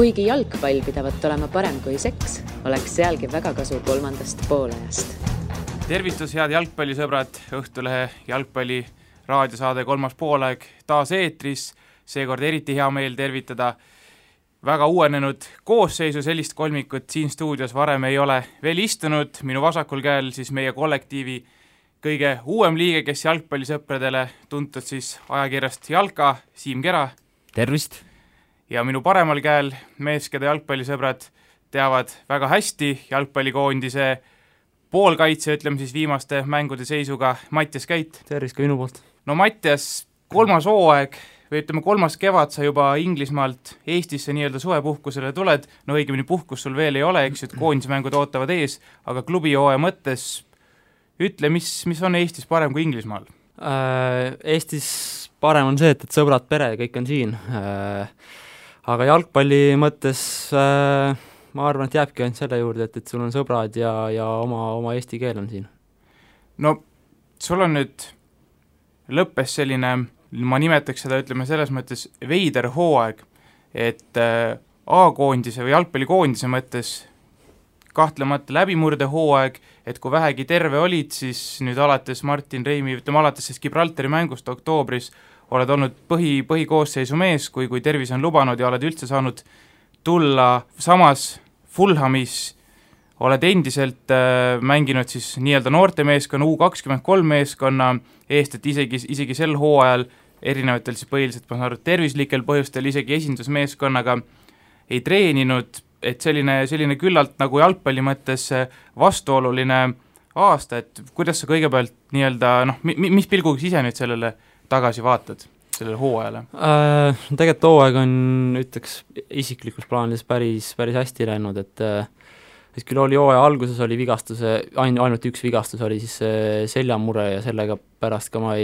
Kuigi jalgpall pidavat olema parem kui seks, oleks sealgi väga kasu kolmandast poolajast. Tervitus, head jalgpallisõbrad, Õhtulehe jalgpalli raadiosaade kolmas poolaeg taas eetris. Seekord eriti hea meel tervitada väga uuenenud koosseisu, sellist kolmikut siin stuudios varem ei ole veel istunud. Minu vasakul käel siis meie kollektiivi kõige uuem liige, kes jalgpallisõpradele tuntud siis ajakirjast Jalka, Siim Kera. Tervist! Ja minu paremal käel mees, keda jalgpallisõbrad teavad väga hästi, jalgpallikoondise poolkaitse, ütleme siis viimaste mängude seisuga, Mattias Käit. Tervist ka minu poolt. No Mattias, kolmas hooaeg või ütleme kolmas kevad sa juba Inglismaalt Eestisse nii-öelda suvepuhkusele tuled, no õigemini puhkus sul veel ei ole, eks ju, et koondismängud ootavad ees, aga klubihooaja mõttes ütle, mis on Eestis parem kui Inglismaal? Eestis parem on see, et sõbrad, pere, kõik on siin. Aga jalgpalli mõttes ma arvan, et jääbki ainult selle juurde, et sul on sõbrad ja oma eesti keel on siin. No sul on nüüd lõppes selline, ma nimetaks seda, ütleme selles mõttes veider hooaeg, et A-koondise või jalgpallikoondise mõttes kahtlemata läbimurde hooaeg, et kui vähegi terve olid, siis nüüd alates Martin Reimi, ütleme alates Gibraltari mängust oktoobris oled olnud põhikoosseisu mees, kui tervis on lubanud ja oled üldse saanud tulla. Samas Fulhamis oled endiselt mänginud siis nii-öelda noortemeeskonna U23 meeskonna eest, et isegi sel hooajal erinevatel siis põhiliselt, ma saan aru, tervislikel põhjustel isegi esindusmeeskonnaga ei treeninud, et selline küllalt nagu jalgpalli mõttes vastuoluline aasta, et kuidas sa kõigepealt nii-öelda, mis pilguga ise nüüd sellele tagasi vaatad, sellele hooajale? Tegelikult hooaeg on, ütleks, isiklikus plaanis päris hästi läinud, et küll oli hooaja alguses oli vigastuse, ainult üks vigastus oli siis seljamure ja sellega pärast ka ma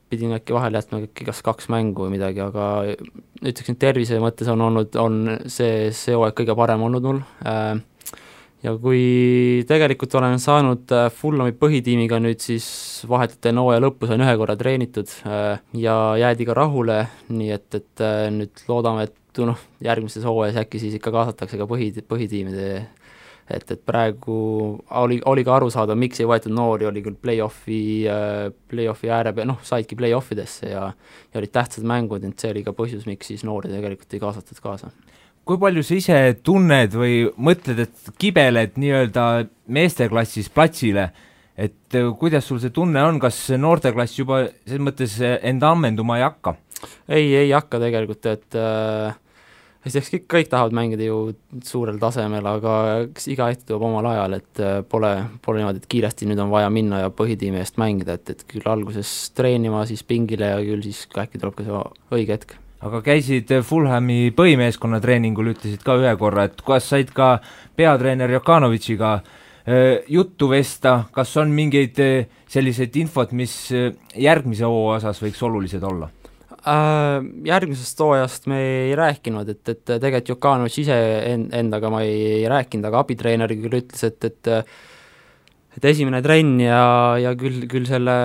pidin äkki vahele jätma kas 2 mängu või midagi, aga ütleks, et tervise mõttes on see hooaeg kõige parem olnud mul. Ja kui tegelikult olen saanud Fulhami põhitiimiga nüüd siis vahetult enne hooaja lõppu sain 1 korra treenitud ja jäädi ka rahule, nii et nüüd loodame, et järgmises hooajas äkki siis ikka kaasatakse ka põhitiimide, et praegu oli ka aru saada, miks ei võetud noori, oli küll play-offi ääre peal, saidki play-offidesse ja olid tähtsad mängud, et see oli ka põhjus, miks siis noori tegelikult ei kaasatud kaasa. Kui palju sa ise tunned või mõtled, et kibeled nii-öelda meesteklassis platsile, et kuidas sul see tunne on, kas noorteklass juba selles mõttes enda ammenduma ei hakka? Ei hakka tegelikult, et kõik tahavad mängida ju suurel tasemel, aga iga hetk tuleb omal ajal, et pole niimoodi, et kiiresti nüüd on vaja minna ja põhitiimi eest mängida, et küll alguses treenima, siis pingile ja küll siis äkki tuleb ka see õige hetk. Aga käisid Fulhami põhimeeskonna treeningul, ütlesid ka 1 korra, et kuidas said ka peatreener Jokanovitšiga juttu vesta, kas on mingeid selliseid infot, mis järgmise hooaja osas võiks olulised olla? Järgmisest hooajast me ei rääkinud, et tegelikult Jokanovitš ise endaga ma ei rääkinud, aga abitreener küll ütles, et esimene trenn ja küll selle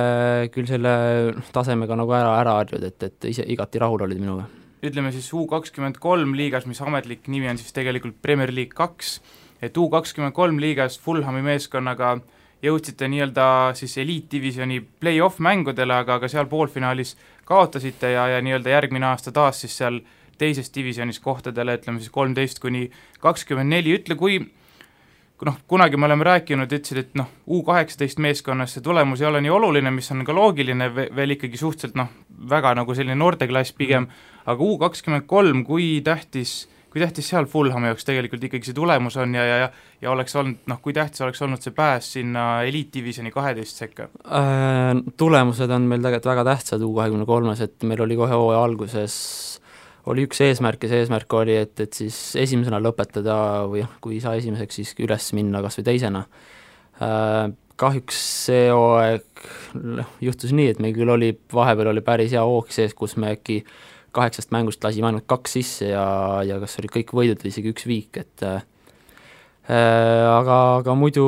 tasemega nagu ära harjud, et ise igati rahul olid minuga. Ütleme siis U23 liigas, mis ametlik nimi on siis tegelikult Premier League 2, et U23 liigas Fulhami meeskonnaga jõudsite nii-öelda siis eliitdivisjoni play-off mängudele, aga seal poolfinaalis kaotasite ja nii-öelda järgmine aasta taas siis seal teises divisionis kohtadele, ütleme siis 13-24, ütle kui kunagi me oleme rääkinud, ütlesid, et U18 meeskonnas see tulemus ei ole nii oluline, mis on ka loogiline, veel ikkagi suhteliselt väga nagu selline noorteklass pigem, aga U23, kui tähtis seal Fulhami jaoks tegelikult ikkagi see tulemus on ja oleks olnud, kui tähtis oleks olnud see pääs sinna eliitdivisjoni 12 sekka? Tulemused on meil tegelikult väga tähtsad U23-s, et meil oli kohe hooaja alguses oli üks eesmärk ja see eesmärk oli, et siis esimesena lõpetada või kui ei saa esimeseks, siis üles minna kas või teisena. Kahjuks see hooaeg juhtus nii, et meil küll vahepeal oli päris hea hoog sees, kus me äkki 8 mängust lasime ainult 2 sisse ja kas oli kõik võidud või isegi 1 viik, et aga muidu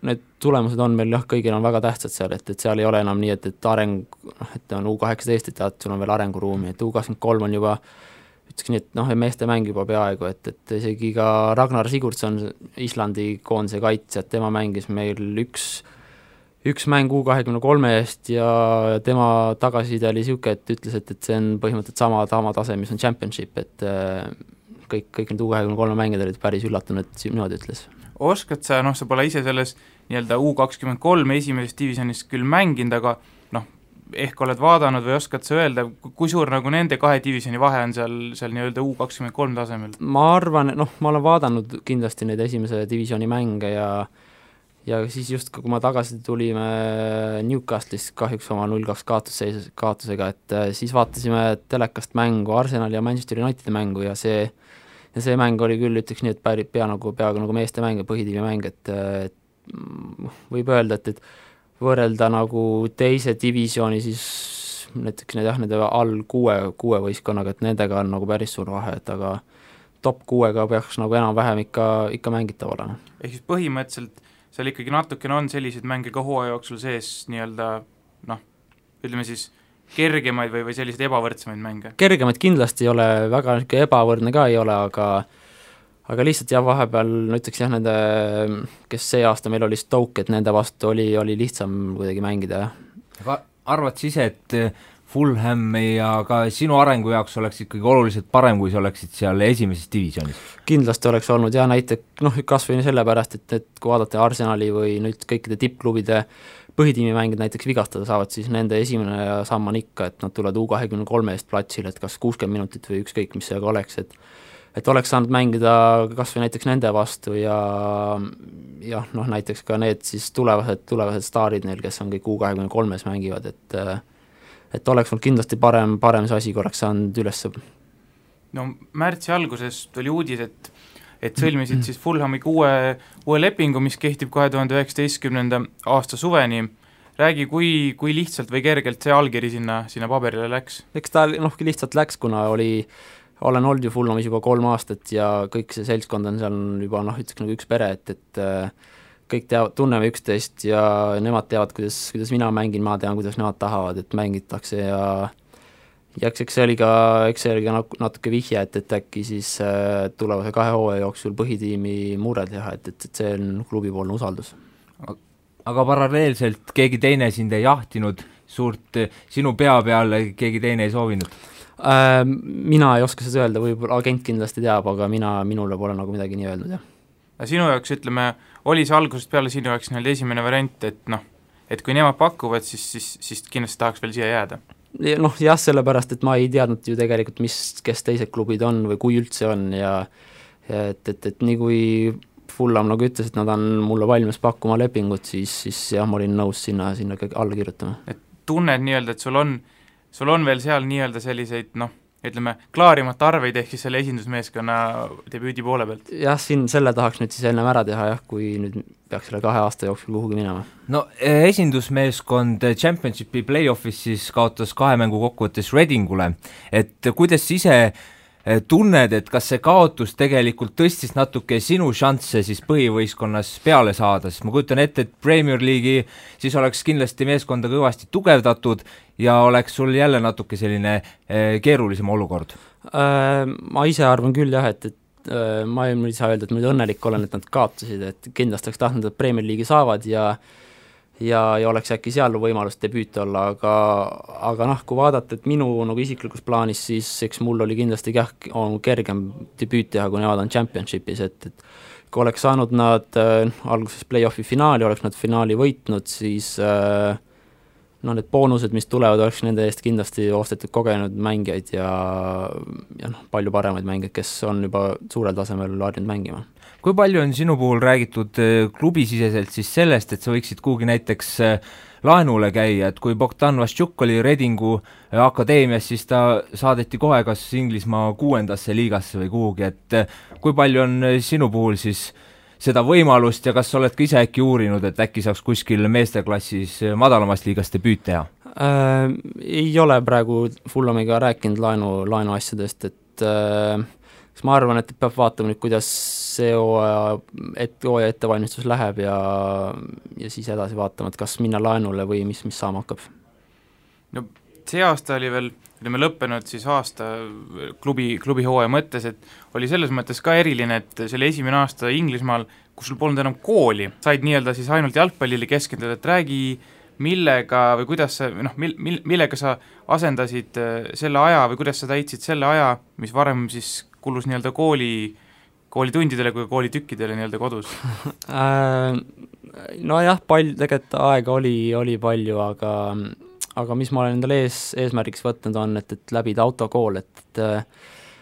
need tulemused on meil kõigil on väga tähtsad seal, et seal ei ole enam nii, et areng, et on U18, et sul on veel arenguruumi, et U23 on juba ütleks nii, et meeste mäng juba peaaegu, et isegi ka Ragnar Sigurdsson, Islandi koondise kaitsjad, tema mängis meil üks mäng U23 eest ja tema tagasiside oli niisugune, et ütles, et see on põhimõtteliselt sama tase, mis on championship, et kõik need U23 mängijad olid päris üllatunud, et niimoodi ütles. Oskad sa, sa pole ise selles nii-öelda U23 esimeses divisionis küll mänginud, aga ehk oled vaadanud või oskad sa öelda, kui suur nagu nende kahe divisjoni vahe on seal nii-öelda U23 tasemel? Ma arvan, ma olen vaadanud kindlasti neid esimese divisjoni mänge ja siis just, kui ma tagasi tulime Newcastle'ist kahjuks oma 0-2 kaotusega, et siis vaatasime telekast mängu, Arsenali ja Manchester Unitedi mängu ja see mäng oli küll, ütleks nii, et peaaegu nagu meeste mäng ja põhitiimi mäng, et võib öelda, et võrrelda nagu teise divisjoni siis näiteks nende all kuue võistkonnaga, et nendega on nagu päris suur vahe, et aga top 6-ga peaks nagu enam-vähem ikka mängitav olema. Ehk siis põhimõtteliselt seal ikkagi natukene on selliseid mänge ka hooaja jooksul sees nii-öelda ütleme siis kergemaid või selliseid ebavõrdsemaid mänge? Kergemaid kindlasti ei ole, väga ebavõrdne ka ei ole, aga lihtsalt vahepeal, ütleks nende, kes see aasta meil oli Stoke, et nende vastu oli lihtsam kuidagi mängida. Aga arvad sa ise, et Fulham ja ka sinu arengu jaoks oleks ikkagi oluliselt parem, kui sa oleksid seal esimeses divisionis? Kindlasti oleks olnud näiteks, kas või sellepärast, et kui vaadata Arsenali või nüüd kõikide tippklubide põhitiimi mängid näiteks vigastada saavad, siis nende esimene samm on ikka, et nad tulevad U23 eest platsile, et kas 60 minutit või ükskõik, mis see aga oleks, et oleks saanud mängida kas või näiteks nende vastu ja näiteks ka need siis tulevased staarid neil, kes on kõik U23-s mängivad, et oleks olnud kindlasti parem see asi, kui oleks saanud üles. No märtsi alguses tuli uudis, et sõlmisid siis Fulhamiga uue lepingu, mis kehtib 2019. aasta suveni. Räägi, kui lihtsalt või kergelt see allkiri sinna paberile läks? Eks ta lihtsalt läks, kuna olen olnud ju Fulhamis juba 3 aastat ja kõik see seltskond on seal juba ütleks nagu üks pere, et kõik tunneme üksteist ja nemad teavad, kuidas mina mängin, ma tean, kuidas nemad tahavad, et mängitakse ja eks see oli ka natuke vihje, et äkki siis tulevase 2 hooaja jooksul põhitiimi mure teha, et see on klubipoolne usaldus. Aga paralleelselt keegi teine sind ei jahtinud, sinu pea peal keegi teine ei soovinud? Mina ei oska seda öelda, võib-olla agent kindlasti teab, aga minule pole nagu midagi nii öelnud, jah. Sinu jaoks, ütleme, oli see algusest peale sinu jaoks esimene variant, et kui nemad pakuvad, siis kindlasti tahaks veel siia jääda? Jah, sellepärast, et ma ei teadnud ju tegelikult, kes teised klubid on või kui üldse on ja et nii kui Fulham nagu ütles, et nad on mulle valmis pakkuma lepingut, siis jah, ma olin nõus sinna alla kirjutama. Et tunned nii-öelda, et sul on veel seal nii-öelda selliseid, ütleme, klaarimata arveid ehk siis selle esindusmeeskonna debüüdi poole pealt? Jah, selle tahaks nüüd siis ennem ära teha, kui nüüd peaks selle 2 aasta jooksul kuhugi minema. No esindusmeeskond Championshipi play-offis siis kaotas 2 mängu kokkuvõttes Readingule, et kuidas ise tunned, et kas see kaotus tegelikult tõstis natuke sinu šansse siis põhivõistkonnas peale saada, sest ma kujutan ette, et Premier League'i siis oleks kindlasti meeskonda kõvasti tugevdatud ja oleks sul jälle natuke selline keerulisem olukord? Ma ise arvan küll jah, et ma ei saa öelda, et ma nüüd õnnelik olen, et nad kaotasid, et kindlasti oleks tahtnud, et Premier League'i saavad ja oleks äkki seal võimalus debüüt olla, aga kui vaadata, et minu nagu isiklikus plaanis, siis eks mul oli kindlasti kergem debüüt teha, kui nemad on Championshipis, et kui oleks saanud nad alguses play-offi finaali, oleks nad finaali võitnud, siis need boonused, mis tulevad, oleks nende eest kindlasti ostetud kogenud mängijaid ja palju paremaid mängijaid, kes on juba suurel tasemel harjunud mängima. Kui palju on sinu puhul räägitud klubisiseselt siis sellest, et sa võiksid kuhugi näiteks laenule käia, et kui Bogdan Vaščuk oli Readingu akadeemias, siis ta saadeti kohe kas Inglismaa 6. liigasse või kuhugi, et kui palju on sinu puhul siis seda võimalust ja kas sa oled ka ise äkki uurinud, et äkki saaks kuskil meesteklassis madalamast liigast debüüt teha? Ei ole praegu Fulhamiga rääkinud laenu asjadest, et ma arvan, et peab vaatama nüüd, kuidas see hooaja ettevalmistus läheb ja siis edasi vaatama, et kas minna laenule või mis saama hakkab. No see aasta oli veel, olime lõppenud siis aasta klubi hooaja mõttes, et oli selles mõttes ka eriline, et see oli esimene aasta Inglismaal, kus sul polnud enam kooli, said nii-öelda siis ainult jalgpallile keskenduda, et räägi, millega või kuidas sa, millega sa asendasid selle aja või kuidas sa täitsid selle aja, mis varem siis kulus nii-öelda koolitundidele kui koolitükkidele nii-öelda kodus? Nojah, tegelikult aega oli palju, aga mis ma olen endale eesmärgiks võtnud on, et läbida autokool, et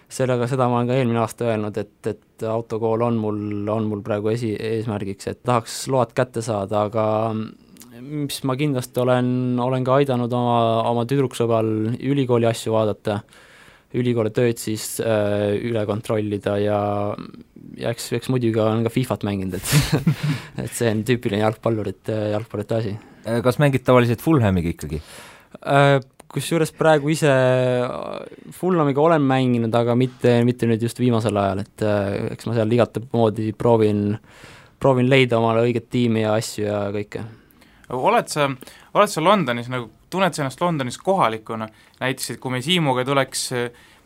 seda ma olen ka eelmine aasta öelnud, et autokool on mul praegu eesmärgiks, et tahaks load kätte saada, aga mis ma kindlasti olen ka aidanud oma tüdruksõbral ülikooli asju vaadata, ülikooli tööd siis üle kontrollida ja eks muidugi olen ka FIFAt mänginud, et et see on tüüpiline jalgpallurite asi. Kas mängid tavaliselt Fulhamiga ikkagi? Kusjuures praegu ise Fulhamiga olen mänginud, aga mitte nüüd just viimasel ajal, et eks ma seal igat moodi proovin leida omale õiget tiimi ja asju ja kõike. Oled sa Londonis, nagu tunned sa ennast Londonis kohalikuna, näiteks, et kui me Siimuga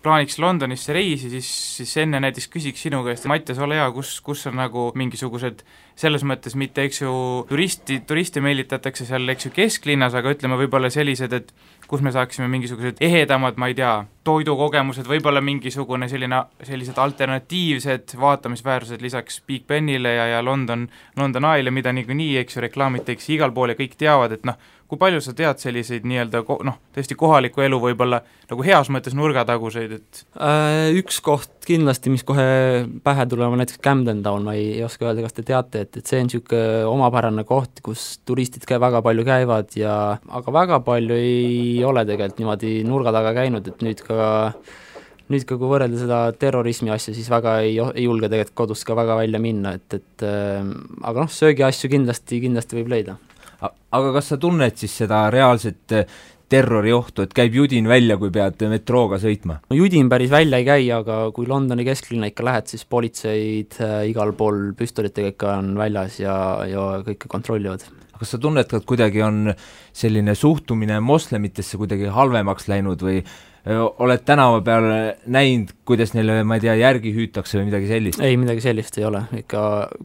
plaaniks Londonisse reisi, siis enne näiteks küsiks sinu käest, Mattias, ole hea, kus on nagu mingisugused, selles mõttes mitte, eks ju, turiste meelitatakse seal, eks ju, kesklinnas, aga ütleme võib-olla sellised, et kus me saaksime mingisugused ehedamad, ma ei tea, toidukogemused, võib-olla mingisugune sellised alternatiivsed vaatamisväärsused lisaks Big Benile ja London Eye'le, mida niikuinii, eks ju, reklaamitakse igal pool ja kõik teavad, et kui palju sa tead selliseid nii-öelda tõesti kohaliku elu võib-olla nagu heas mõttes nurgataguseid, et üks koht kindlasti, mis kohe pähe tuleb, on näiteks Camden Town, ma ei oska öelda, kas te teate, et see on niisugune omapärane koht, kus turistid väga palju käivad aga väga palju ei ole tegelikult niimoodi nurga taga käinud, et nüüd ka kui võrrelda seda terrorismi asja, siis väga ei julge tegelikult kodust ka väga välja minna, aga söögi asju kindlasti võib leida. Aga kas sa tunned siis seda reaalset terroriohtu, et käib judin välja, kui pead metrooga sõitma? No judin päris välja ei käi, aga kui Londoni kesklinna ikka lähed, siis politseid igal pool püstolitega ikka on väljas ja kõike kontrollivad. Kas sa tunned, et kuidagi on selline suhtumine moslemitesse kuidagi halvemaks läinud või oled tänava peal näinud, kuidas neile, ma ei tea, järgi hüütakse või midagi sellist? Ei, midagi sellist ei ole, ikka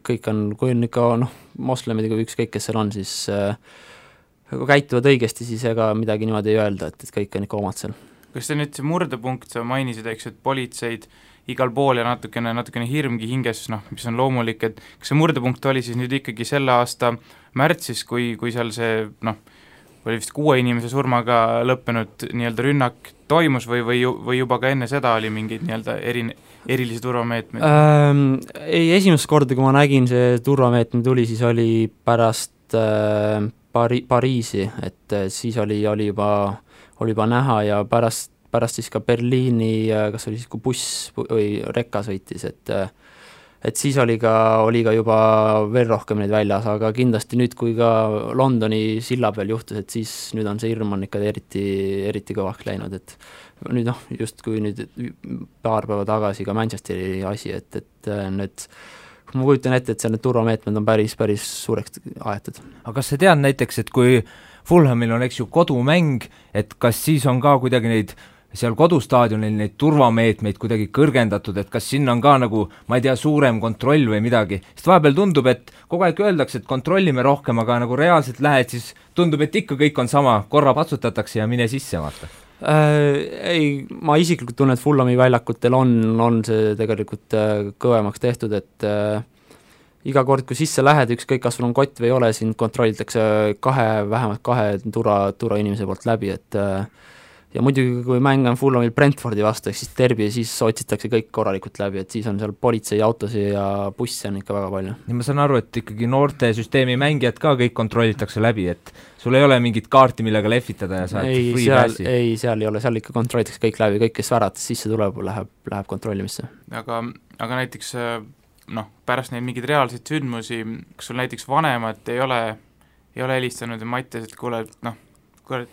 kõik on, kui on ikka moslemid, kui ükskõik, kes seal on, siis kui käituvad õigesti, siis ega midagi niimoodi ei öelda, et kõik on ikka omad seal. Kas see nüüd see murdepunkt, sa mainisid, eks, et politseid igal pool ja natukene hirmgi hinges, mis on loomulik, et kas see murdepunkt oli siis nüüd ikkagi selle aasta märtsis, kui seal see, oli vist 6 inimese surmaga lõppenud nii-öelda rünnak toimus või juba ka enne seda oli mingeid nii-öelda erilisi turvameetmeid? Ei, esimest korda, kui ma nägin, see turvameetme tuli, siis oli pärast Pariisi, et siis oli juba näha ja pärast siis ka Berliini, kas oli siis, kui buss või rekka sõitis, et siis oli ka juba veel rohkem neid väljas, aga kindlasti nüüd, kui ka Londoni silla peal juhtus, et siis nüüd on see hirm on ikka eriti kõvaks läinud, et nüüd just kui nüüd paar päeva tagasi ka Manchesteri asi, et need, ma kujutan ette, et seal need turvameetmed on päris suureks aetud. aga kas sa tead näiteks, et kui Fulhamil on, eks ju, kodumäng, et kas siis on ka kuidagi neid seal kodustaadionil neid turvameetmeid kuidagi kõrgendatud, et kas sinna on ka nagu, ma ei tea, suurem kontroll või midagi, sest vahepeal tundub, et kogu aeg öeldakse, et kontrollime rohkem, aga nagu reaalselt lähed, siis tundub, et ikka kõik on sama, korra patsutatakse ja mine sisse, vaata. Ei, ma isiklikult tunnen, et Fulhami väljakutel on see tegelikult kõvemaks tehtud, et iga kord, kui sisse lähed, ükskõik kas sul on kott või ei ole, sind kontrollitakse vähemalt kahe turvainimese poolt läbi, et ja muidugi, kui mäng on Fulhamil Brentfordi vastu, ehk siis derbi, siis otsitakse kõik korralikult läbi, et siis on seal politseiautosi ja busse on ikka väga palju. Ja ma saan aru, et ikkagi noorte süsteemi mängijad ka kõik kontrollitakse läbi, et sul ei ole mingit kaarti, millega lehvitada ja saad free passi? Ei, seal ei ole, seal ikka kontrollitakse kõik läbi, kõik, kes värates sisse tuleb, läheb kontrollimisse. Aga näiteks pärast neid mingeid reaalseid sündmusi, kas sul näiteks vanemad ei ole helistanud ja Mattias, et kuule,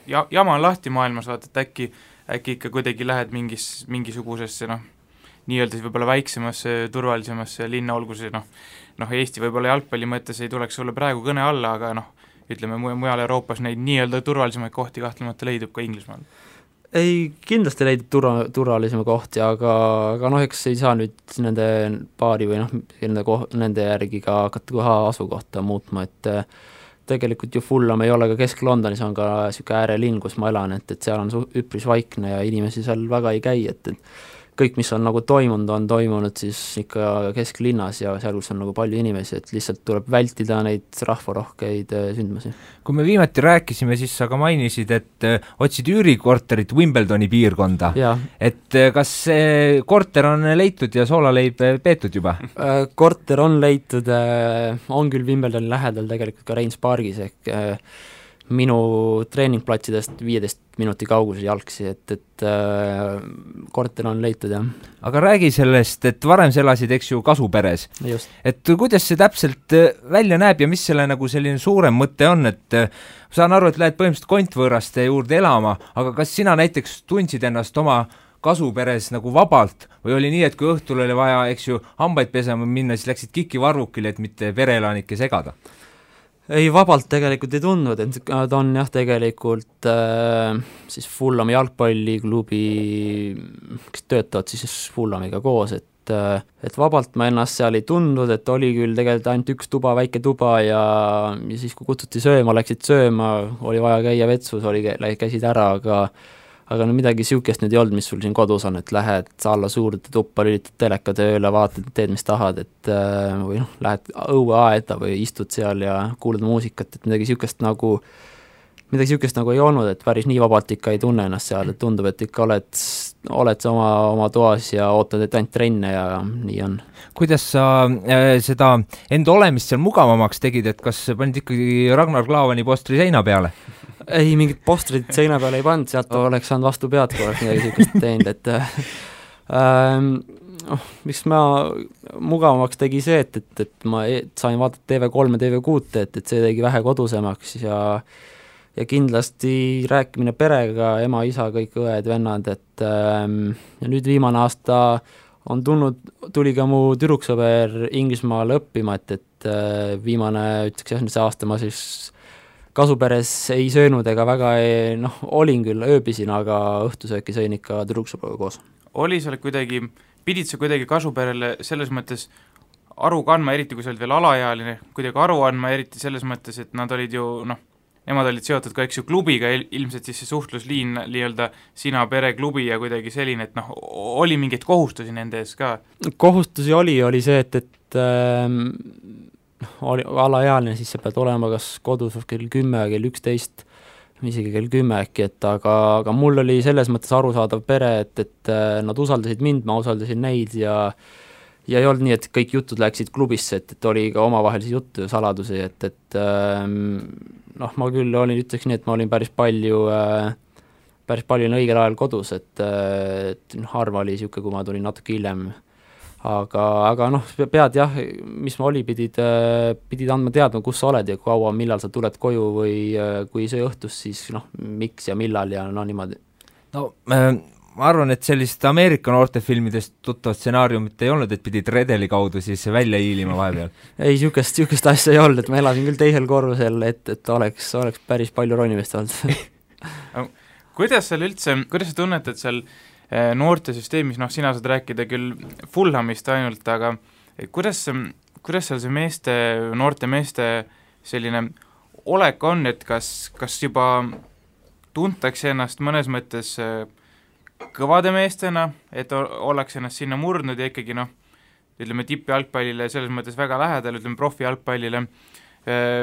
jama on lahti maailmas, vaata, et äkki ikka kuidagi lähed mingisugusesse nii-öelda siis võib-olla väiksemasse, turvalisemasse linna, olgu see Eesti võib-olla jalgpalli mõttes ei tuleks sulle praegu kõne alla, aga ütleme, mujal Euroopas neid nii-öelda turvalisemaid kohti kahtlemata leidub ka Inglismaal. ei, kindlasti leidnud turvalisema kohti, aga noh, eks ei saa nüüd nende paari või nende järgi ka hakata kohe asukohta muutma, et tegelikult ju Fulham ei ole ka Kesk-Londonis, on ka niisugune äärelinn, kus ma elan, et seal on üpris vaikne ja inimesi seal väga ei käi, et kõik, mis on nagu toimunud siis ikka kesklinnas ja seal, kus on nagu palju inimesi, et lihtsalt tuleb vältida neid rahvarohkeid sündmusi. Kui me viimati rääkisime, siis sa ka mainisid, et otsid üürikorterit Wimbledoni piirkonda. Et kas see korter on leitud ja soolaleib peetud juba? Korter on leitud, on küll Wimbledoni lähedal tegelikult ka Rheins Pargis ehk minu treeningplatsidest 15 minuti kaugusel jalgsi, et korter on leitud, jah. Aga räägi sellest, et varem sa elasid, eks ju, Kasuperes. Just. Et kuidas see täpselt välja näeb ja mis selle nagu selline suurem mõte on, et saan aru, et lähed põhimõtteliselt kontvõõraste juurde elama, aga kas sina näiteks tundsid ennast oma Kasuperes nagu vabalt või oli nii, et kui õhtul oli vaja, eks ju, hambaid pesema minna, siis läksid kikivarvukile, et mitte vereelanikke segada? Ei, vabalt tegelikult ei tundnud, et ta on jah, tegelikult siis Fulhami jalgpalliklubi, kes töötavad siis Fulhamiga koos, et vabalt ma ennast seal ei tundnud, et oli küll tegelikult ainult üks tuba, väike tuba ja siis kui kutsuti sööma, läksid sööma, oli vaja käia vetsus, käisid ära, aga no midagi niisugust nüüd ei olnud, mis sul siin kodus on, et lähed alla suurde tuppa, lülitad teleka tööle, vaatad, teed, mis tahad, et või noh, lähed õueaeda või istud seal ja kuulad muusikat, et midagi niisugust nagu ei olnud, et päris nii vabalt ikka ei tunne ennast seal, et tundub, et ikka oled sa oma toas ja ootad, et ainult trenne ja nii on. Kuidas sa seda enda olemist seal mugavamaks tegid, et kas panid ikkagi Ragnar Klavani postri seina peale? Ei, mingit postrit seina peale ei pannud, sealt oleks saanud vastu pead, kui oleks midagi niisugust teinud, et miks ma mugavamaks tegi see, et ma sain vaadata TV3 ja TV6, et see tegi vähe kodusemaks ja kindlasti rääkimine perega, ema, isa, kõik õed, vennad, et ja nüüd viimane aasta tuli ka mu tüdruksõber Inglismaale õppima, et viimane, ütleks jah, see aasta ma siis Kasuperes ei söönud ega väga olin küll, ööbisin, aga õhtusööki sõin ikka tüdruksõbraga koos. Pidid sa kuidagi Kasuperele selles mõttes aru kandma, eriti kui sa olid veel alaealine, kuidagi aru andma, eriti selles mõttes, et nad olid ju, nemad olid seotud ka, eks ju, klubiga, ilmselt siis see suhtlusliin nii-öelda sina pere klubi ja kuidagi selline, et oli mingeid kohustusi nende ees ka? Kohustusi oli see, et oli alaealine, siis sa pead olema kas kodus kell 10, kell 11, isegi kell 10 äkki, aga mul oli selles mõttes arusaadav pere, et nad usaldasid mind, ma usaldasin neid ja ei olnud nii, et kõik jutud läksid klubisse, et oli ka omavahelisi juttu ja saladusi, et ma küll ütleks nii, et ma olin päris palju õigel ajal kodus, et harva oli niisugune, kui ma tulin natuke hiljem. Aga pead jah, mis ma pidid andma teadma, kus sa oled ja kaua, millal sa tuled koju või kui see õhtus, siis miks ja millal ja niimoodi. Ma arvan, et sellist Ameerika noortefilmidest tuttavat stsenaariumit ei olnud, et pidid redeli kaudu siis välja hiilima vahepeal? Ei, niisugust asja ei olnud, et ma elasin küll teisel korrusel, et oleks päris palju ronimist olnud. Kuidas sa tunnetad seal noortesüsteemis, sina saad rääkida küll Fulhamist ainult, aga kuidas seal see noorte meeste selline olek on, et kas juba tuntakse ennast mõnes mõttes kõvade meestena, et ollakse ennast sinna murdnud ja ikkagi ütleme tippjalgpallile selles mõttes väga lähedal, ütleme profijalgpallile,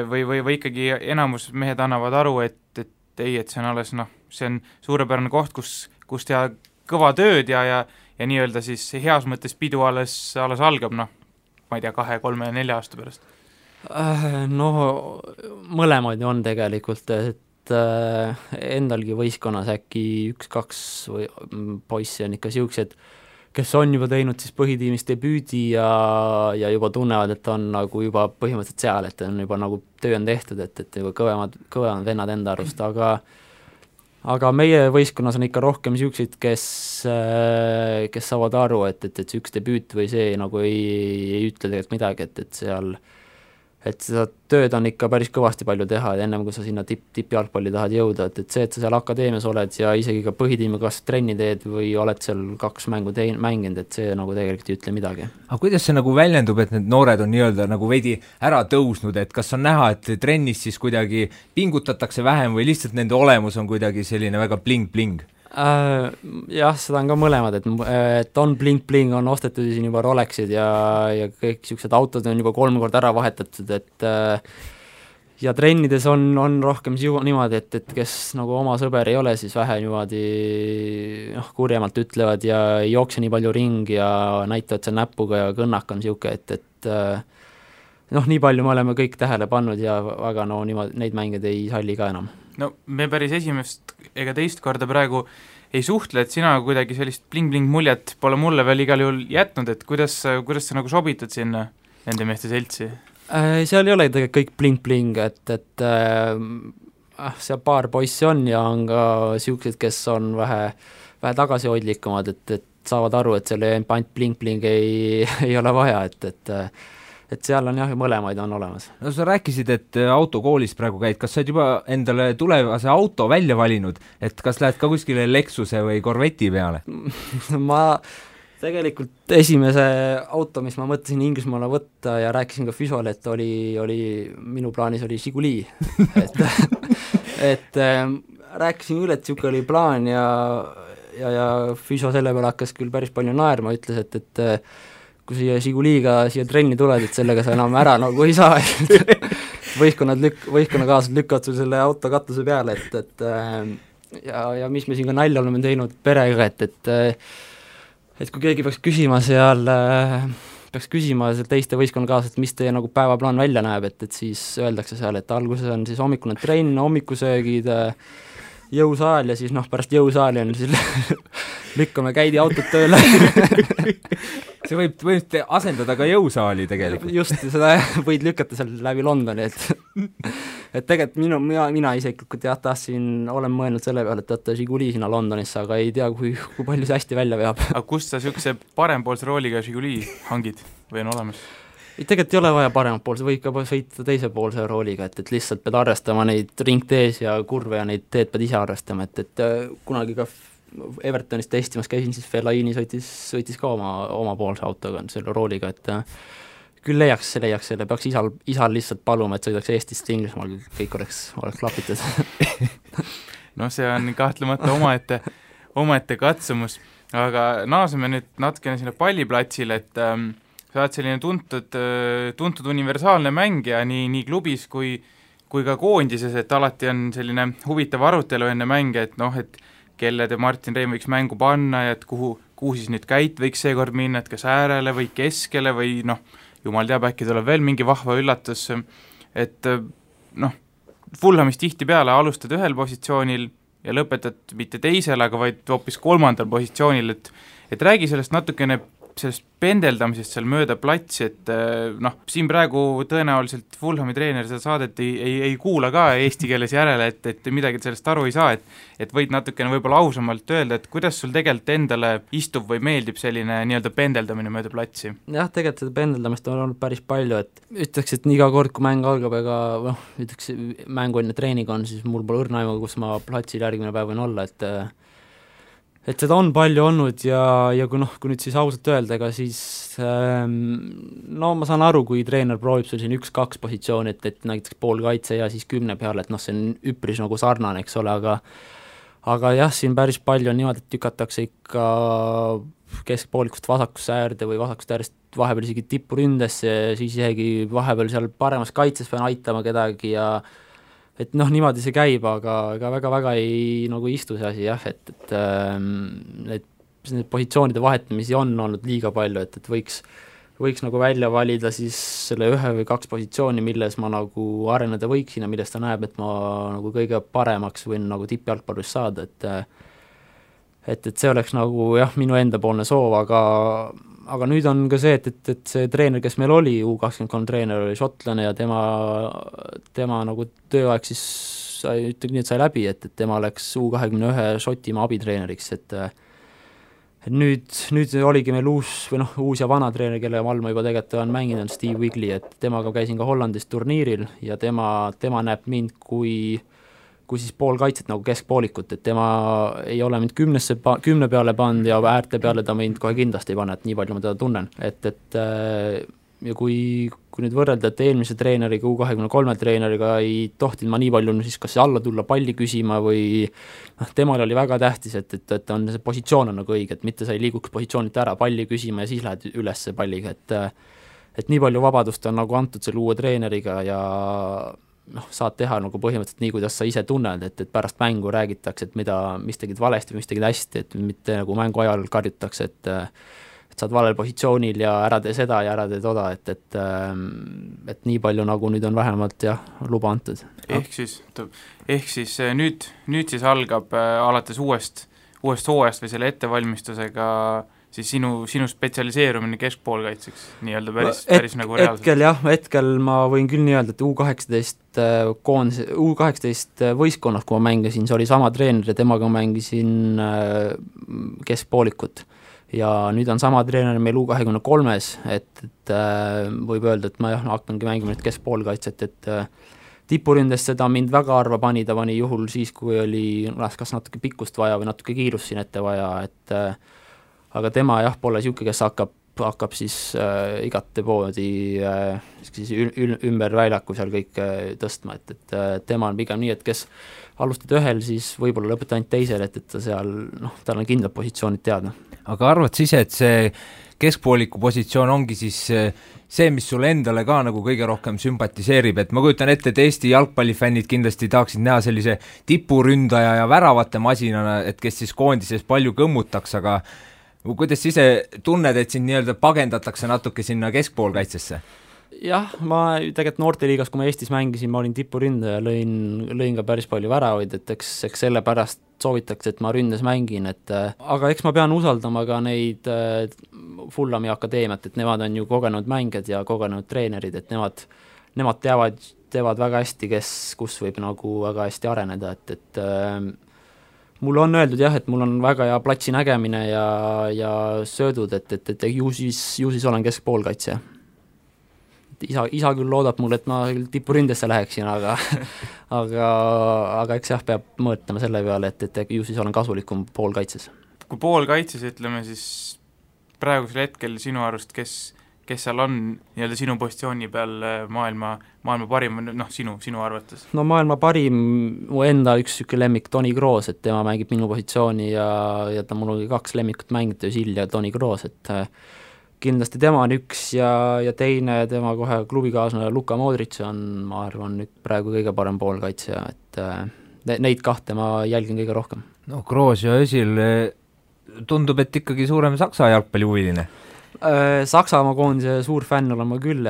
või ikkagi enamus mehed annavad aru, et see on alles see on suurepärane koht, kus teha kõva tööd ja nii-öelda siis heas mõttes pidu alles algab, ma ei tea, 2, 3, 4 aasta pärast? Mõlemaid on tegelikult, et endalgi võistkonnas äkki 1-2 või poissi on ikka siuksed, kes on juba teinud siis põhitiimis debüüdi ja juba tunnevad, et on nagu juba põhimõtteliselt seal, et on juba nagu töö on tehtud, et juba kõvemad vennad enda arust, aga meie võistkonnas on ikka rohkem niisuguseid, kes saavad aru, et see üks debüüt või see nagu ei ütle tegelikult midagi, et seal et seda tööd on ikka päris kõvasti palju teha, ennem kui sa sinna tippjalgpalli tahad jõuda, et see, et sa seal akadeemias oled ja isegi ka põhitiimi kas trenni teed või oled seal 2 mängu mänginud, et see nagu tegelikult ei ütle midagi. aga kuidas see nagu väljendub, et need noored on nii-öelda nagu veidi ära tõusnud, et kas on näha, et trennis siis kuidagi pingutatakse vähem või lihtsalt nende olemus on kuidagi selline väga bling-bling? Jah, seda on ka mõlemad, et on bling-bling, on ostetud siin juba Rolexid ja kõik niisugused autod on juba 3 korda ära vahetatud, et ja trennides on rohkem niimoodi, et kes nagu oma sõber ei ole, siis vähe niimoodi kurjemalt ütlevad ja ei jookse nii palju ringi ja näitavad seal näpuga ja kõnnak on niisugune, et nii palju me oleme kõik tähele pannud ja väga niimoodi neid mängeid ei salli ka enam. No me päris esimest ega teist korda praegu ei suhtle, et sina kuidagi sellist bling-bling muljet pole mulle veel igal juhul jätnud, et kuidas sa nagu sobitad sinna nende meeste seltsi? Seal ei ole tegelikult kõik bling-bling, et seal paar poissi on ja on ka niisugused, kes on vähe tagasihoidlikumad, et saavad aru, et seal ainult bling-bling ei ole vaja, et seal on jah, mõlemaid on olemas. No sa rääkisid, et autokoolis praegu käid, kas sa oled juba endale tulevase auto välja valinud, et kas lähed ka kuskile Lexuse või Corvetti peale? Ma tegelikult esimese auto, mis ma mõtlesin Inglismaale võtta ja rääkisin ka Füsole, et oli minu plaanis oli Žiguli et rääkisin üle, et niisugune oli plaan ja Füso selle peale hakkas küll päris palju naerma, ütles, et kui siia Žiguliga siia trenni tuled, et sellega sa enam ära nagu ei saa võistkonnakaaslased lükkavad sul selle auto katuse peale, et ja mis me siin ka nalja oleme teinud perega, et kui keegi peaks küsima seal teiste võistkonnakaaslased, mis teie nagu päevaplaan välja näeb, et siis öeldakse seal, et alguses on siis hommikune trenn, hommikusöögid, jõusaal ja siis pärast jõusaali on siis lükkame käidi autot tööle See võib asendada ka jõusaali tegelikult. Just, seda võid lükata seal läbi Londoni, et tegelikult mina isiklikult olen mõelnud selle peale, et võtta Žiguli sinna Londonisse, aga ei tea, kui palju see hästi välja veab. Aga kust sa niisuguse parempoolse rooliga Žiguli hangid või on olemas? Tegelikult ei ole vaja paremat poolse, võib ka sõita teise poolse rooliga, et lihtsalt pead arvestama neid ringtees ja kurve ja neid teed pead ise arvestama, et kunagi ka Evertonis testimas käisin, siis Fellaini sõitis ka oma poolse autoga, selle rooliga, et küll leiaks selle, peaks isal lihtsalt paluma, et sõidaks Eestist Inglismaal, kõik oleks klapitud No see on kahtlemata omaette katsumus, aga naaseme nüüd natukene sinna palliplatsile, et sa oled selline tuntud universaalne mängija nii klubis kui ka koondises, et alati on selline huvitav arutelu enne mänge, et kelle te Martin Reim võiks mängu panna ja et kuhu siis nüüd Käit võiks seekord minna, et kas äärele või keskele või jumal teab, äkki tuleb veel mingi vahva üllatus, et Fulhamis tihtipeale alustad ühel positsioonil ja lõpetad mitte teisel, aga vaid hoopis 3. positsioonil, et räägi sellest natukene sellest pendeldamisest seal mööda platsi, et siin praegu tõenäoliselt Fulhami treener seda saadet ei kuula ka eesti keeles järele, et midagi sellest aru ei saa, et võid natukene võib-olla ausamalt öelda, et kuidas sul tegelikult endale istub või meeldib selline nii-öelda pendeldamine mööda platsi? Jah, tegelikult seda pendeldamist on olnud päris palju, et ütleks, et iga kord, kui mäng algab, ega ütleks, mängu enne treening on, siis mul pole õrna aimu, kus ma platsil järgmine päev võin olla, et seda on palju olnud ja kui nüüd siis ausalt öelda, ega siis ma saan aru, kui treener proovib sul siin 1-2 positsiooni, et näiteks pool kaitse ja siis 10 peale, et see on üpris nagu sarnane, eks ole, aga jah, siin päris palju on niimoodi, et tükatakse ikka keskpoolikust vasakusse äärde või vasakust äärest vahepeal isegi tippuründesse ja siis isegi vahepeal seal paremas kaitses pean aitama kedagi ja et niimoodi see käib, aga väga-väga ei istu see asi jah, et need positsioonide vahetamisi on olnud liiga palju, et võiks nagu välja valida siis selle 1 või 2 positsiooni, milles ma nagu areneda võiksin ja millest ta näeb, et ma nagu kõige paremaks võin nagu tippjalgpallist saada, et see oleks nagu jah, minu endapoolne soov, aga nüüd on ka see, et see treener, kes meil oli, U23 treener oli šotlane ja tema nagu tööaeg siis sai läbi, et tema läks U21 Šotimaa abitreeneriks, nüüd oligi meil uus ja vana treener, kelle all ma juba tegelikult olen mänginud, Steve Wigley, et temaga käisin ka Hollandis turniiril ja tema näeb mind kui siis poolkaitset nagu keskpoolikut, et tema ei ole mind 10 peale pannud ja äärte peale ta mind kohe kindlasti ei pane, et nii palju ma teda tunnen, et ja kui nüüd võrrelda, et eelmise treeneriga, U23 treeneriga ei tohtinud ma nii palju siis kas alla tulla palli küsima või temal oli väga tähtis, et on see positsioon on nagu õige, et mitte sa ei liiguks positsioonilt ära palli küsima ja siis lähed üles palliga, et nii palju vabadust on nagu antud selle uue treeneriga ja saad teha nagu põhimõtteliselt nii, kuidas sa ise tunned, et pärast mängu räägitakse, et mis tegid valesti või mis tegid hästi, et mitte nagu mängu ajal karjutakse, et saad valel positsioonil ja ära tee seda ja ära tee toda, et nii palju nagu nüüd on vähemalt luba antud. Ehk siis nüüd siis algab alates uuest hooajast või selle ettevalmistusega siis sinu spetsialiseerumine keskpoolkaitseks nii-öelda päris nagu reaalselt? Hetkel ma võin küll nii öelda, et U18 võistkonnas, kui ma mängisin, see oli sama treener ja temaga mängisin keskpoolikut. Ja nüüd on sama treener meil U23-s, et võib öelda, et ma hakkangi mängima nüüd keskpoolkaitset, et tipuründes seda mind väga harva pani, ta pani juhul siis, kui oli kas natuke pikkust vaja või natuke kiirust siin ette vaja, et aga tema pole niisugune, kes hakkab siis igate poodi siis ümber väljaku seal kõik tõstma, et tema on pigem nii, et kes alustad ühel, siis võib-olla lõpeta ainult teisel, et ta seal, tal on kindlad positsioonid teada. Aga arvad siis, et see keskpooliku positsioon ongi siis see, mis sulle endale ka nagu kõige rohkem sümpatiseerib, et ma kujutan ette, et Eesti jalgpallifännid kindlasti tahaksid näha sellise tipuründaja ja väravate masinana, et kes siis koondises palju kõmmutaks, aga kuidas ise tunned, et sind nii-öelda pagendatakse natuke sinna keskpoolkaitsesse? Jah, ma tegelikult noorteliigas, kui ma Eestis mängisin, ma olin tipuründaja, lõin ka päris palju väravaid, et eks sellepärast soovitakse, et ma ründes mängin, aga eks ma pean usaldama ka neid Fulhami akadeemiat, et nemad on ju kogenud mängijad ja kogenud treenerid, et nemad teevad väga hästi, kus võib nagu väga hästi areneda, et mulle on öeldud et mul on väga hea platsi nägemine ja söödud, et ju siis olen keskpoolkaitsja. Isa küll loodab mul, et ma tipuründesse läheksin, aga eks peab mõõtama selle peale, et ju siis olen kasulikum poolkaitses. Kui poolkaitses, ütleme siis praegusel hetkel sinu arust, kes seal on nii-öelda sinu positsiooni peal maailma parim, sinu arvates? No maailma parim, mu enda üks lemmik Toni Kroos, et tema mängib minu positsiooni ja ta mul oli 2 lemmikut mängida, Özil ja Toni Kroos, et kindlasti tema on üks ja teine tema kohe klubikaaslane Luka Modric on, ma arvan, nüüd praegu kõige parem poolkaitsja, et neid kahte ma jälgin kõige rohkem. No Kroos ja Özil tundub, et ikkagi suurem Saksa jalgpallihuviline. Saksamaa koondise suur fänn olen ma küll,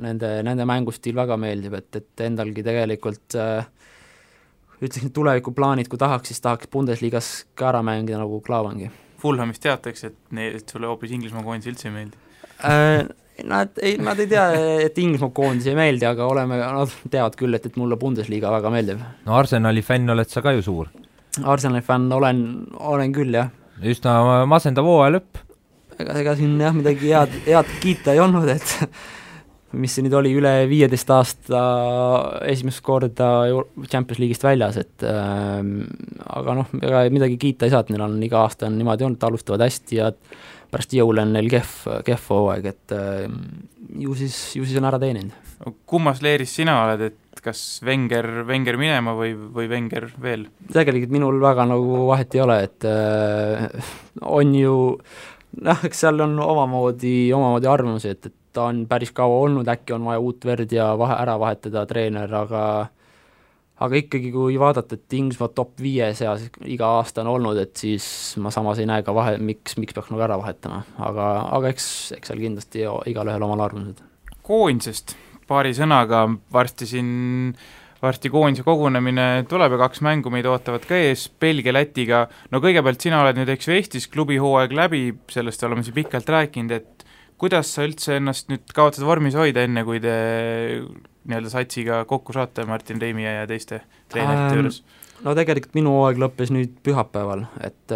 nende mängustiil väga meeldib, et endalgi tegelikult ütleksin tulevikuplaanid, kui tahaks, siis tahaks Bundesligas ka ära mängida nagu Klaavangi. Fulhamist teatakse, et sulle hoopis Inglismaa koondis üldse ei meeldi? Nad ei tea, et Inglismaa koondis ei meeldi, aga nad teavad küll, et mulle Bundesliga väga meeldib. No Arsenali fänn oled sa ka ju suur? Arsenali fänn olen küll, jah. Üsna masendav hooaja lõpp. Ega siin midagi head kiita ei olnud, et mis see nüüd oli üle 15 aasta esimest korda Champions League'ist väljas, et aga ega midagi kiita ei saa, et neil on iga aasta on niimoodi olnud, alustavad hästi ja pärast jõule on neil kehv hooaeg, et ju siis on ära teeninud. Kummas leeris sina oled, et kas Wenger minema või Wenger veel? Tegelikult minul väga nagu vahet ei ole, et on ju eks seal on omamoodi arvamusi, et ta on päris kaua olnud, äkki on vaja uut verd ja ära vahetada treener, aga ikkagi kui vaadata, et Inglismaa top 5 seas iga aasta on olnud, et siis ma samas ei näe ka miks peaks nagu ära vahetama, aga eks seal kindlasti igal ühel omal arvamused. Koondisest paari sõnaga, varsti koondise kogunemine tuleb ja 2 mängu meid ootavad ka ees, Belgia, Lätiga. No kõigepealt sina oled nüüd Eestis klubihooaeg läbi, sellest oleme siin pikalt rääkinud, et kuidas sa üldse ennast nüüd kavatsed vormis hoida, enne kui te nii-öelda satsiga kokku saate Martin Reimi ja teiste treenerite juures? No tegelikult minu hooaeg lõppes nüüd pühapäeval, et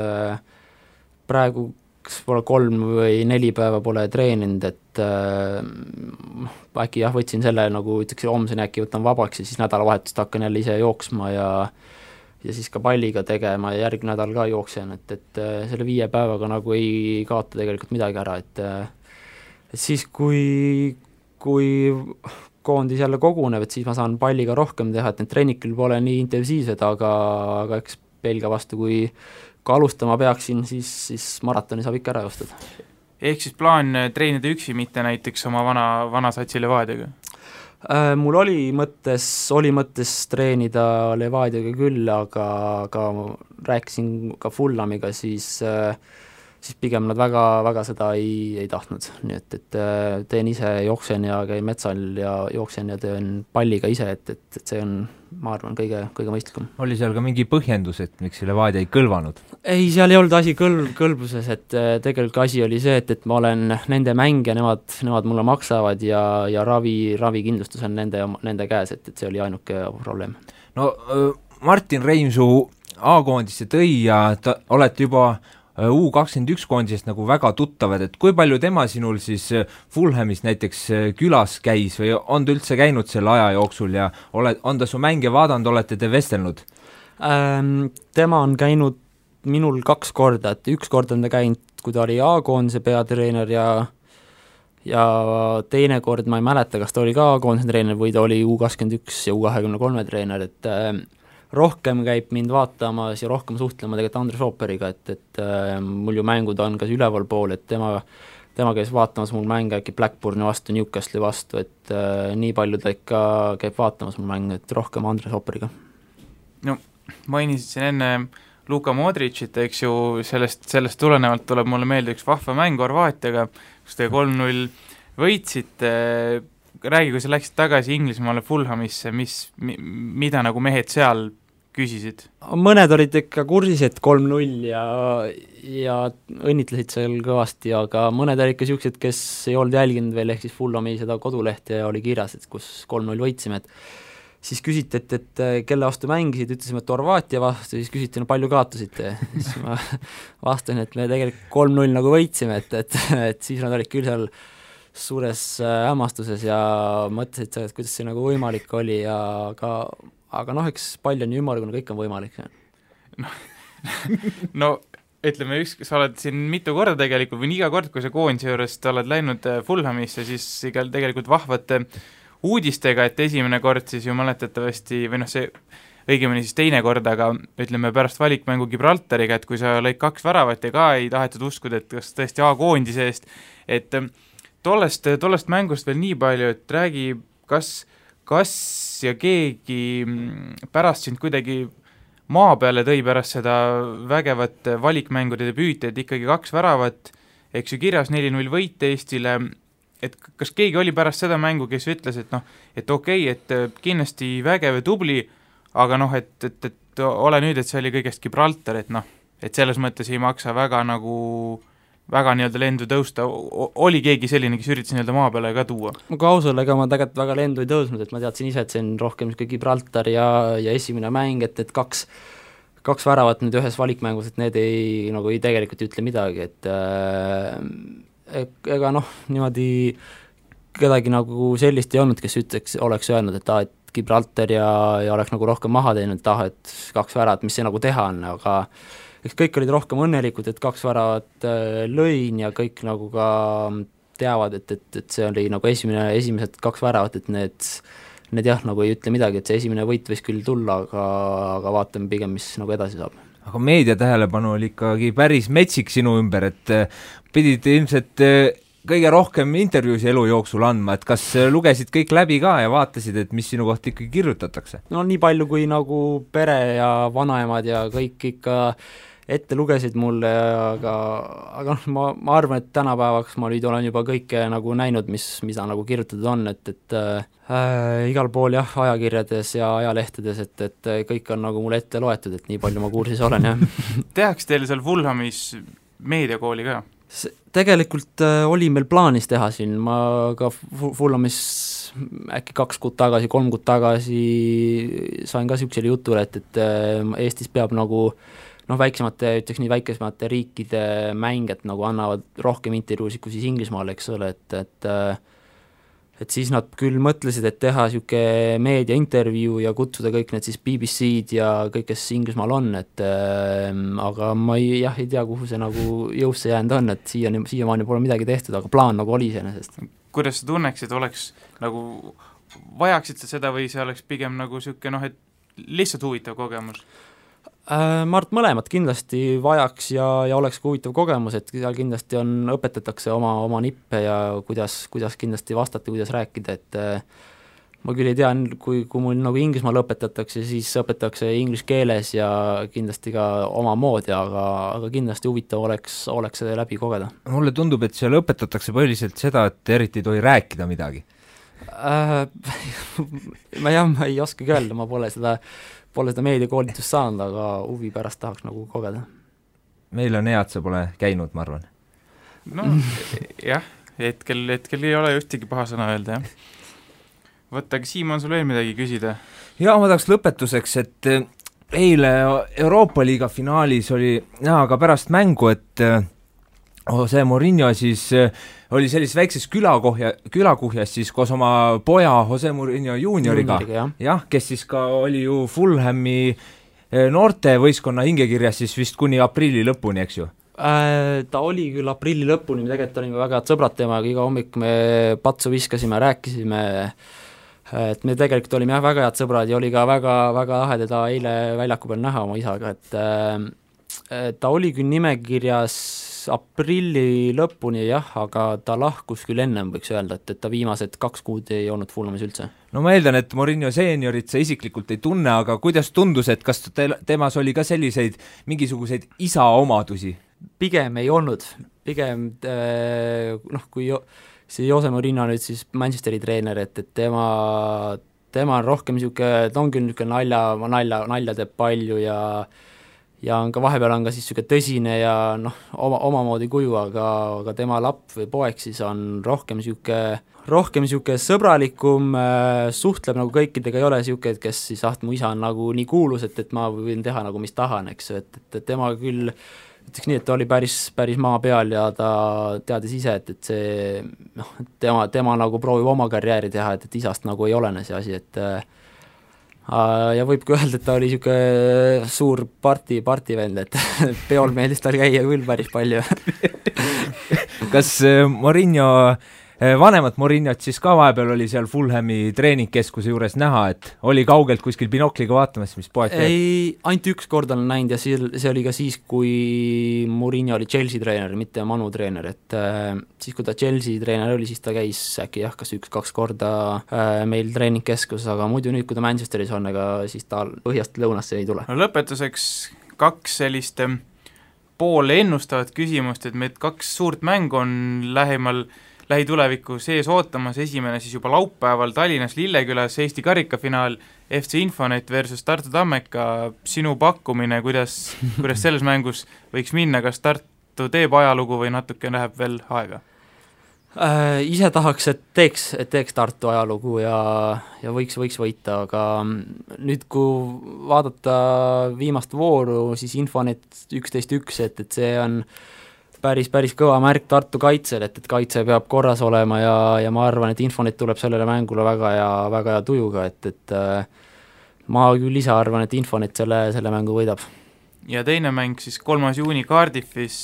praegu võib-olla 3 või 4 päeva pole treeninud, et äkki jah, võtsin selle nagu ütleks, homseni äkki võtan vabaks ja siis nädalavahetust hakkan jälle ise jooksma ja siis ka palliga tegema ja järgmine nädal ka jooksen, et selle 5 päevaga nagu ei kaota tegelikult midagi ära, et siis kui koondis jälle koguneb, et siis ma saan palliga rohkem teha, et need treenikul pole nii intensiivsed, aga eks Belgia vastu, kui alustama peaksin, siis maratoni saab ikka ära joostada. Ehk siis plaan treenida üksi, mitte näiteks oma vana satsi Levadiaga? Mul oli mõttes treenida Levadiaga küll, aga rääkisin ka Fulhamiga, siis pigem nad väga seda ei tahtnud, nii et teen ise, jooksen ja käin metsal ja jooksen ja teen palliga ise, et see on, ma arvan, kõige mõistlikum. Oli seal ka mingi põhjendus, et miks Levadia ei kõlvanud? Ei, seal ei olnud asi kõlbuses, et tegelikult asi oli see, et ma olen nende mängija, nemad mulle maksavad ja ravikindlustus on nende käes, et see oli ainuke probleem. No Martin Reimsuu A-koondisse tõi ja olete juba U21 koondisest nagu väga tuttavad, et kui palju tema sinul siis Fulhamis näiteks külas käis või on ta üldse käinud selle aja jooksul ja on ta su mänge vaadanud, olete te vestelnud? Tema on käinud minul 2 korda, et 1 kord on ta käinud, kui ta oli A-koondise peatreener ja teine kord ma ei mäleta, kas ta oli ka A-koondise treener või ta oli U21 ja U23 treener, et rohkem käib mind vaatamas ja rohkem suhtlema tegelikult Andres Ooperiga, et mul ju mängud on kas üleval pool, et tema käis vaatamas mul mänge äkki Blackburni vastu, Newcastle'i vastu, et nii palju ta ikka käib vaatamas mul mänge, et rohkem Andres Ooperiga. No mainisid siin enne Luka Modricit, eks ju, sellest tulenevalt tuleb mulle meelde üks vahva mäng Horvaatiaga, kus te 3-0 võitsite. Räägi, kui sa läksid tagasi Inglismaale Fulhamisse, mida nagu mehed seal küsisid? Mõned olid ikka kursis, et 3-0 ja õnnitlesid seal kõvasti, aga mõned olid ikka siuksed, kes ei olnud jälginud veel, ehk siis Fulhami seda kodulehte ja oli kirjas, et kus 3-0 võitsime, et siis küsiti, et kelle vastu mängisid, ütlesime, et Horvaatia vastu, siis küsiti, no palju kaotasite, siis ma vastasin, et me tegelikult 3-0 nagu võitsime, et siis nad olid küll seal suures hämmastuses ja mõtlesid seda, et kuidas see nagu võimalik oli ja aga noh, eks pall on ju ümmargune, kõik on võimalik. No ütleme, sa oled siin mitu korda tegelikult või iga kord, kui sa koondise juurest oled läinud Fulhamisse, siis igal tegelikult vahvate uudistega, et esimene kord siis ju mäletatavasti, või noh, see õigemini siis teine kord, aga ütleme pärast valikmängu Gibraltariga, et kui sa lõid 2 väravat ja ka ei tahetud uskuda, et kas tõesti A-koondise eest, et tollest mängust veel nii palju, et räägi, kas ja keegi pärast sind kuidagi maa peale tõi pärast seda vägevat valikmängude debüüti, et ikkagi 2 väravat, eks ju kirjas 4-0 võit Eestile, et kas keegi oli pärast seda mängu, kes ütles, et noh, et okei, et kindlasti vägev ja tubli, aga noh, et ole nüüd, et see oli kõigest Gibraltar, et noh, et selles mõttes ei maksa väga nii-öelda lendu tõusta, oli keegi selline, kes üritas nii-öelda maa peale ka tuua? Ma kausel, ega ma tegelikult väga lendu ei tõusnud, et ma teadsin ise, et see on rohkem Gibraltar ja esimene mäng, et 2 väravat nüüd ühes valikmängus, et need ei tegelikult ütle midagi, et ega noh, niimoodi kedagi nagu sellist ei olnud, kes oleks öelnud, et Gibraltar ja oleks nagu rohkem maha teinud, et 2 väravat, mis see nagu teha on, aga eks kõik olid rohkem õnnelikud, et 2 väravat lõin ja kõik nagu ka teavad, et see oli nagu esimesed 2 väravat, et need jah, nagu ei ütle midagi, et see esimene võit võis küll tulla, aga vaatame pigem, mis nagu edasi saab. Aga meedia tähelepanu oli ikkagi päris metsik sinu ümber, et pidid ilmselt kõige rohkem intervjuusi elu jooksul andma, et kas lugesid kõik läbi ka ja vaatasid, et mis sinu kohta ikkagi kirjutatakse? No nii palju, kui nagu pere ja vanaemad ja kõik ikka ette lugesid mulle, aga ma arvan, et tänapäevaks ma nüüd olen juba kõike nagu näinud, mida nagu kirjutatud on, et igal pool jah, ajakirjades ja ajalehtedes, et kõik on nagu mulle ette loetud, et nii palju ma kursis olen, jah. Tehakse teil seal Fulhamis meediakooli ka? Tegelikult oli meil plaanis teha siin, ma ka Fulhamis äkki 2 kuud tagasi, 3 kuud tagasi sain ka niisugusele jutule, et Eestis peab nagu väiksemate, ütleks nii, väiksemate riikide mängijad nagu annavad rohkem intervjuusid kui siis Inglismaal, eks ole, et siis nad küll mõtlesid, et teha niisugune meediaintervjuu ja kutsuda kõik need siis BBC-d ja kõik, kes Inglismaal on, aga ma ei tea, kuhu see nagu jõusse jäänud on, et siiamaani pole midagi tehtud, aga plaan nagu oli iseenesest. Kuidas sa tunneksid, oleks nagu, vajaksid sa seda või see oleks pigem nagu niisugune et lihtsalt huvitav kogemus? Ma arvan, mõlemad kindlasti vajaks ja oleks huvitav kogemus, et seal kindlasti õpetatakse oma nippe ja kuidas kindlasti vastata, kuidas rääkida, et ma küll ei tea, kui mul nagu Inglismaal õpetatakse, siis õpetatakse inglise keeles ja kindlasti ka oma moodi, aga kindlasti huvitav oleks see läbi kogeda. Mulle tundub, et seal õpetatakse põhiliselt seda, et eriti ei tohi rääkida midagi. Ma ei oskagi öelda, ma pole seda meediakoolitust saanud, aga huvi pärast tahaks nagu kogeda. Meil on hea, et sa pole käinud, ma arvan. No jah, hetkel ei ole ühtegi paha sõna öelda, jah. Võtta, aga Siim, on sul veel midagi küsida? Ja ma tahaks lõpetuseks, et eile Euroopa Liiga finaalis oli näha ka pärast mängu, et Jose Mourinho siis oli sellises väikses külakuhjas siis koos oma poja Jose Mourinho juunioriga, jah, kes siis ka oli ju Fulhami noorte võistkonna hingekirjas siis vist kuni aprilli lõpuni, eks ju? Ta oli küll aprilli lõpuni, tegelikult olime väga head sõbrad temaga, iga hommik me patsu viskasime, rääkisime, et me tegelikult olime väga head sõbrad ja oli ka väga lahe teda eile väljaku peal näha oma isaga, et ta oli küll nimekirjas aprilli lõpuni jah, aga ta lahkus küll ennem, võiks öelda, et ta viimased 2 kuud ei olnud Fulhamis üldse. No ma eeldan, et Mourinho seeniorit sa isiklikult ei tunne, aga kuidas tundus, et kas temas oli ka selliseid mingisuguseid isa omadusi? Pigem ei olnud, pigem kui see Jose Mourinho nüüd siis Manchesteri treener, et tema on rohkem niisugune, ta on küll niisugune nalja teeb palju ja on ka vahepeal on ka siis niisugune tõsine ja omamoodi kuju, aga tema lapp või poeg siis on rohkem niisugune sõbralikum, suhtleb nagu kõikidega, ei ole niisugune, kes siis mu isa on nagu nii kuulus, et ma võin teha nagu mis tahan, eks, et tema küll ütleks nii, et ta oli päris maa peal ja ta teadis ise, et see tema nagu proovib oma karjääri teha, et isast nagu ei olene see asi, et ja võib ka öelda, et ta oli niisugune suur partivend, et peol meeldis tal käia küll päris palju. Kas Mourinho, vanemat Mourinhot siis ka vahepeal oli seal Fulhami treeningkeskuse juures näha, et oli kaugelt kuskil binokliga vaatamas, mis poeg teeb? Ei, ainult üks kord olen näinud ja see oli ka siis, kui Mourinho oli Chelsea treener, mitte Manu treener, et siis kui ta Chelsea treener oli, siis ta käis äkki kas 1-2 korda meil treeningkeskuses, aga muidu nüüd, kui ta Manchesteris on, ega siis ta põhjast lõunasse ei tule. No lõpetuseks 2 sellist poole ennustavat küsimust, et meid 2 suurt mängu on lähituleviku sees ootamas, esimene siis juba laupäeval Tallinnas Lillekülas Eesti karikafinaal FC Infonet versus Tartu Tammeka, sinu pakkumine, kuidas selles mängus võiks minna, kas Tartu teeb ajalugu või natuke läheb veel aega? Ise tahaks, et teeks Tartu ajalugu ja võiks võita, aga nüüd, kui vaadata viimast vooru, siis Infonet 11-1, et see on päris kõva märk Tartu kaitsel, et kaitse peab korras olema ja ma arvan, et Infonet tuleb sellele mängule väga hea tujuga, et ma küll ise arvan, et Infonet selle mängu võidab. Ja teine mäng siis 3. juuni Cardiffis,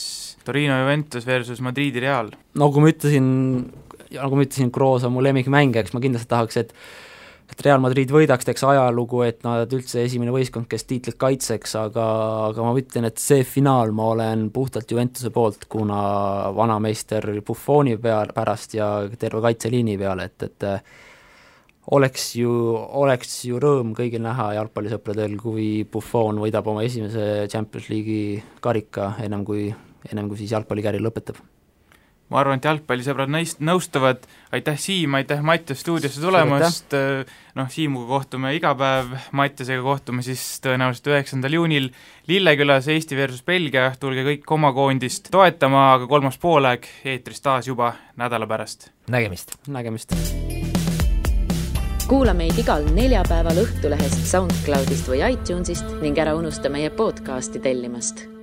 Torino Juventus versus Madridi Real. Nagu ma ütlesin, Kroos on mu lemmikmäng, eks ma kindlasti tahaks, et Real Madrid võidaks, teeks ajalugu, et nad üldse esimene võistkond, kes tiitlit kaitseks, aga ma ütlen, et see finaal ma olen puhtalt Juventuse poolt, kuna vanameister Buffoni pärast ja terve kaitseliini peale, et oleks ju rõõm kõigil näha jalgpallisõpradel, kui Buffon võidab oma esimese Champions League'i karika ennem kui siis jalgpallikäri lõpetab. Ma arvan, et jalgpallisõbrad nõustuvad. Aitäh Siim, aitäh Mattias stuudiosse tulemast. Siimuga kohtume iga päev, Mattiasega kohtume siis tõenäoliselt 9. juunil Lillekülas Eesti versus Belgia. Tulge kõik oma koondist toetama, aga 3. poolaeg eetris taas juba nädala pärast. Nägemist! kuula meid igal neljapäeval Õhtulehest, SoundCloudist või iTunesist ning ära unusta meie podcasti tellimast.